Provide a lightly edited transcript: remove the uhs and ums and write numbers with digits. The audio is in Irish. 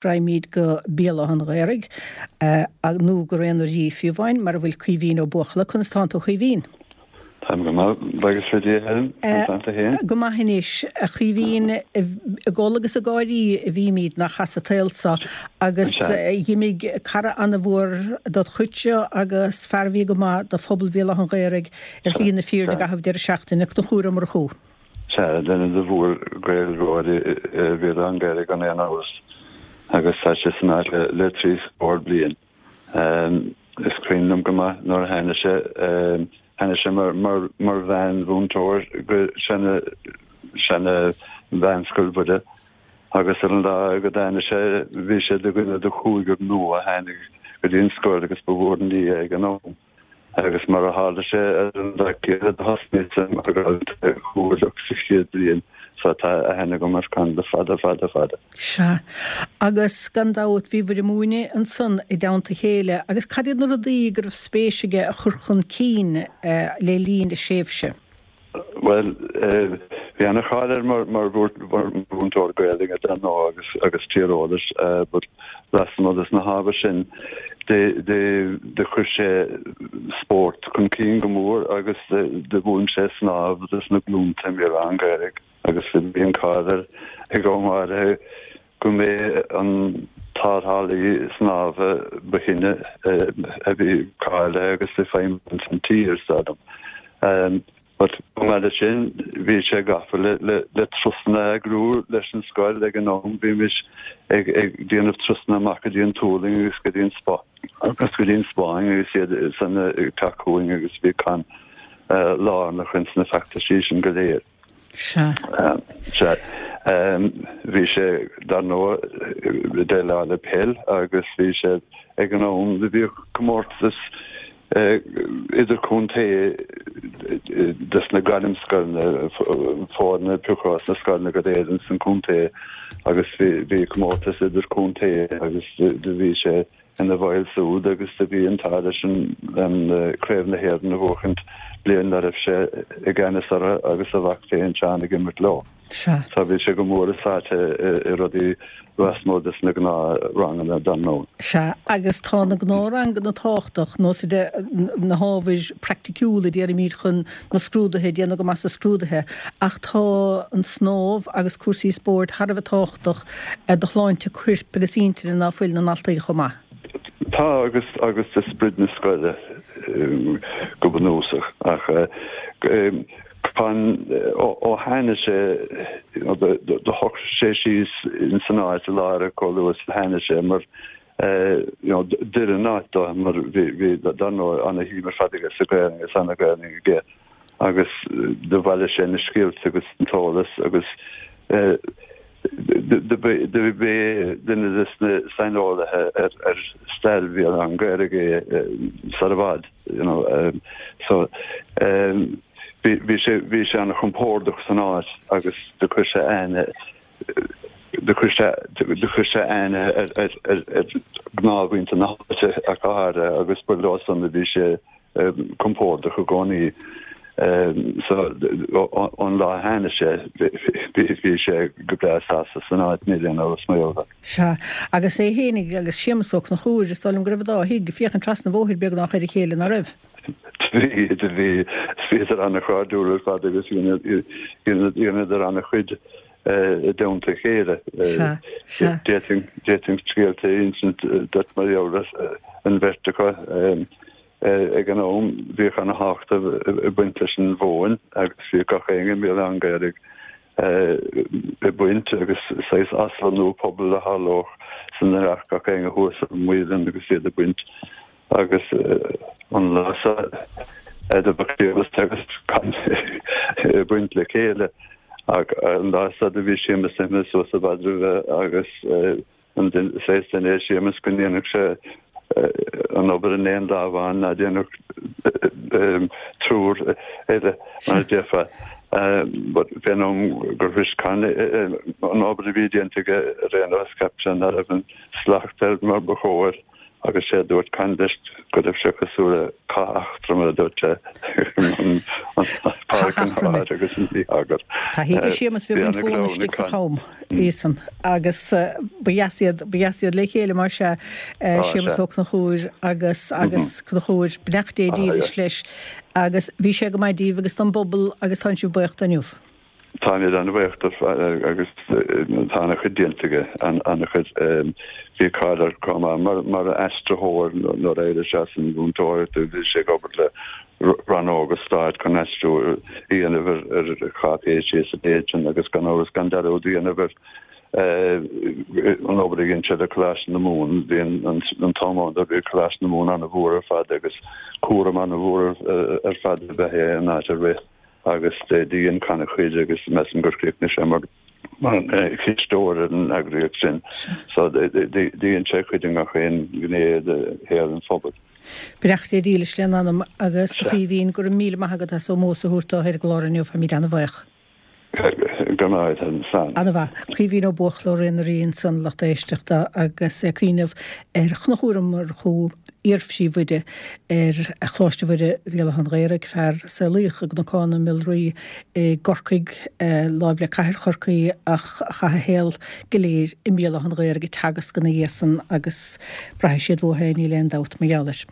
Raghaimid go Béal Átha an Ghaorthaidh, nó go Raon an Rí fiú amháin, mar a bhfuil Caoimhín Ó Buachalla. Conas tánn tú, a Chaoimhín? Táim go maith, buíochas le Dia, Helen. Conas tánn tú féin? Go maith anois, a Chaoimhín. Ag gol agus ag gáirí a bhímid nach as an tsaol so, agus dh'imigh cara ana-mhór dod chuidse agus fear a bhí go maith do phobal Bhéal Átha an Ghaorthaidh ar shlí na fírinne i gcaitheamh deireadh seachtaine. Conchúr Ó Murchú. Sea, duine de mhór-Ghaeilgeoirí Bhéal Átha an Ghaorthaidh gan aon amhras, agus tá sé san áit le trí scór bliain. Is cuimhin liom go maith nuair a tháinig sé, tháinig sé mar mheánmhúinteoir go seana, seana-mheánscoil Mhuire, agus ar an lá go dtáinig sé, bhí sé de dhuine de chúigear nua a tháinig go dtí an scoil agus ba mhór an ní é ag an am. Agus mar a tharla sé ar an lá céanna do thosnaíos-sa mar dhalta comhairleach sa chéad bhliain so tá aithne agam ar Con le fada fada fada. Sea. Agus gan dabht bhíobhair ag múineadh ansan i dteannta a chéile. Agus cad iad na rudaí go raibh spéis aige a chur chun cinn le linn a thréimhse? Bhuel, bhí ana-cháil air mar mhúinteoir Gaelainne dar ndóigh agus tíreolais but lasmuigh des na hábhair sin do chuir sé spórt chun cinn go mór agus do mhúin sé snámh dos na glúnta i mBéal Átha an Ghaorthaidh agus bhí an cáil air ag am áirithe go mb'é an tarrthálaí snámha ba shine a bhí cáilithe agus ag feidhmiú ins an tír, is dóigh liom. But chomh maith leis sin, bhí sé gafa le le turasanna a eagrú leis an scoil ag an am. Bhímis ag ag déanamh turasanna amach go dtí an Tualaing agus go dtí an agus go dtí an Spáinn agus iad san ag teacht chugainn agus bhí Con lárnach ins na feachtaisí sin go léir. Sea. Sea. Bhí sé, dar ndóigh, ag déileáil le peil agus bhí sé ag an am do bhíodh comórtas idirchontae dos na gairmscoileanna, foirne a piocadh as na scoileanna go léir ins an chontae agus bhí comórtas idirchontae agus do bhí sé ina bhall súd agus do bhí an t-ádh leis an Craobh na hÉireann a bhuachaint bliain dá raibh sé i gceannas orthu agus a mhac féin Seán ag imirt leo. Sea. So bhí sé go mór sáite i rudaí lasmuigh des na gnáthranganna dar ndóigh. Sea, agus tá na gnáthranganna tábhachtach, nós de na hábhair praiticiúla déarfaimid chun na scrúduithe, déanamh go maith sa scrúduithe, ach tá an snámh agus cúrsaí spóirt thar a bheith tábhachtach do shláinte coirp agus intinne ná fuil na ndaltaí chomh maith. Tá, agus agus do sprid na scoile go bunúsach. Ach Con, ó tháinig sé, do shocraigh sé síos ins an áit i láthair chomh luath is a tháinig sé mar you know d'oir an áit dó mar bhí bhí dar ndóigh ana-shuim ar fad aige sa Ghaelainn agus ana-Ghaelainn aige agus do bhailigh sé na scéalta agus an t-eolas agus do b'é duine des na saineolaithe ar ar stair Bhéal Átha an Ghaorthaidh é sar i bhfad you know so bhí bhí sé bhí sé ana-chompordach san áit agus do chuir sé aithne Do chuir sé do chuir sé aithne ar ar ar ar ghnáthmhuintir na háite ach go háirithe agus ba leo san a bhí sé compordach i gcónaí. So ón lá a tháinig sé bhí bhí sé go breá sásta san áit níl aon amhras mar gheall air. Sea, agus é fhéinig agus Séamus Ó Conchúir, is dóigh liom go raibh an dá thigh ag féachaint trasna an bhóthair beagnach ar a chéile, ná raibh? Bhí, bhí, bhíodar an-chairdiúil ar fad agus dheineadar an-chuid i dteannta a chéile. D'fhéadfainn scéalta a insint duit mar gheall ar an bheirt acu. Ag an am bhíodh ana-thábhacht ag baint leis an mhóin agus bhíodh gach éinne i mBéal Átha an Ghaorthaidh ag baint agus saghas aslonnú pobail a tharlódh san a rachadh gach éinne thuas ar an muileann agus iad ag baint. Agus an lá so do bheadh Séamus agus Con ag baint le chéile. Ach an lá so do bhí Séamus imithe suas i bhfad roimhe agus an saghas duine é Séamus go ndéanfadh sé an obair in aon lá amháin ná déanfadh triúr eile mar a déarfá. But fén am gur shrois Con an obair a bhí déanta aige ar aon nós cheap sé ná raibh an slacht air mar ba chóir. Agus sé a dúirt Con leis go raibh sé cosúil le cath eachtra mar a dúirt sé an Cath Eachroime. agus an mí-eagar. Taithí aige Séamus bhí baint mhór istigh sa cham bhí san agus ba dheas iad ba dheas iad le chéile mar sea Séamus Ó Conchúir agus agus Conchúr beannacht Dé dílis leis agus bhí sé go maith díbh agus don bpobal agus tánn sibh buíoch dó inniu. Táimid an-bhuíoch dó agus tá an-chuid déanta aige, an-chuid. Bhí cáil air chomh maith mar aistritheoir nuair a d'éirigh sé as an mhúinteoireacht bhí sé ag obair le rannóga stáit chun aistriú a dhéanamh ar cháipéisí is a leithéid sin agus gan amhras gan dearúd a dhéanamh ar an obair a dhein sé le Coláiste na Mumhan. Bhí an t-am ann bhí Coláiste na Mumhan an-mhór ar fad agus cúram an-mhór ar fad ab ea é an áit a rith. agus do dhein Con a chuid agus measaim gur chríochnaigh sé mar chisteoir ar an eagraíocht sin. So dhein sé a chuid i ngach aon ghné de shaol an phobail. Beannacht Dé dílis lena anam agus a Chaoimhín, go raibh míle maith agat as ómós a thabhairt dó ar an gclár inniu, táimid an-bhuíoch. Go raibh maith agat, slán. An-mhaith. Caoimhín Ó Buachalla ó Ré na Rí ansan, lucht éisteachta, agus é ag cuimhneamh ar Chonchúr Ó Murchú, iarphríomhoide ar Choláiste Mhuire Bhéal Átha an Ghaorthaidh, fear a saolaíodh i gCnocán na Miolraí i gCorcaigh, láimh le cathair Chorcaí, ach a chaith a shaol go léir i mBéal Átha an Ghaorthaidh ag teagasc ina dhiaidh san agus braithfidh siad uathu é, níl aon dabht mar gheall air.